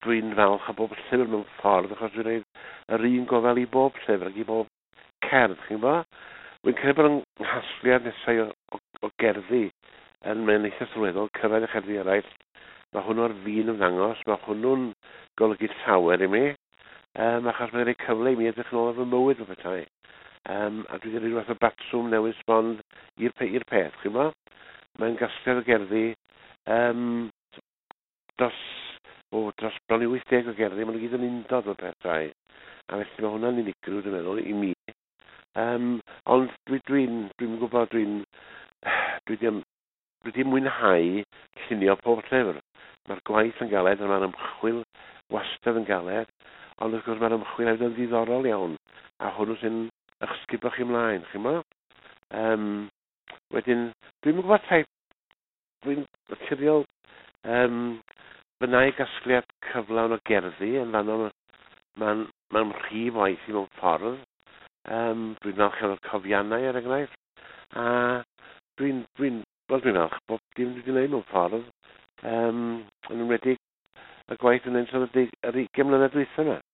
Dwi'n falch o bob llyfr mewn ffordd, achos dwi'n rhaid yr un gofal i bob llyfr ac i bob cerdd, chi'n gwybod? Wy'n credu bod yng nghasgliad nesau o gerddi yn mae'n eitha sylweddol, cyrraedd y cherddi eraill. Mae hwnnw ar fin ymddangos, mae hwnnw'n golygu llawer i mi, achos mae'n rhoi cyfle i mi edrych yn ôl ar fy mywyd o bethau. A dwi wedi rhoi rhywbeth o batrwm newydd sbon i'r peth, chi'n gwybod? Mae'n gasgliad o gerddi dros bron i 80 o gerddi, maen nhw gyd yn undod o pethau. A felly mae hwnna'n unigryw, dwi'n meddwl, i mi. Ond dwi'n gwybod, dwi wedi mwynhau llunio pob llyfr. Mae'r gwaith yn galed, a mae'r ymchwil wastad yn galed, ond wrth gwrs mae'r ymchwil hefyd yn ddiddorol iawn, a hwnnw sy'n eich sgubo chi ymlaen, chi'n mo? Wedyn, dwi'n gwybod tai, dwi'n naturiol, fy nau gasgliad cyflawn o gerddi yn fanno, mae'n rhif waith i mewn ffordd. Dwi'n falch iawn o'r cofiannau, er enghraifft, a dwi'n falch bob dim dwi wedi gwneud mewn ffordd, yn enwedig y gwaith yn ennill yr 20 mlynedd dwytha yma.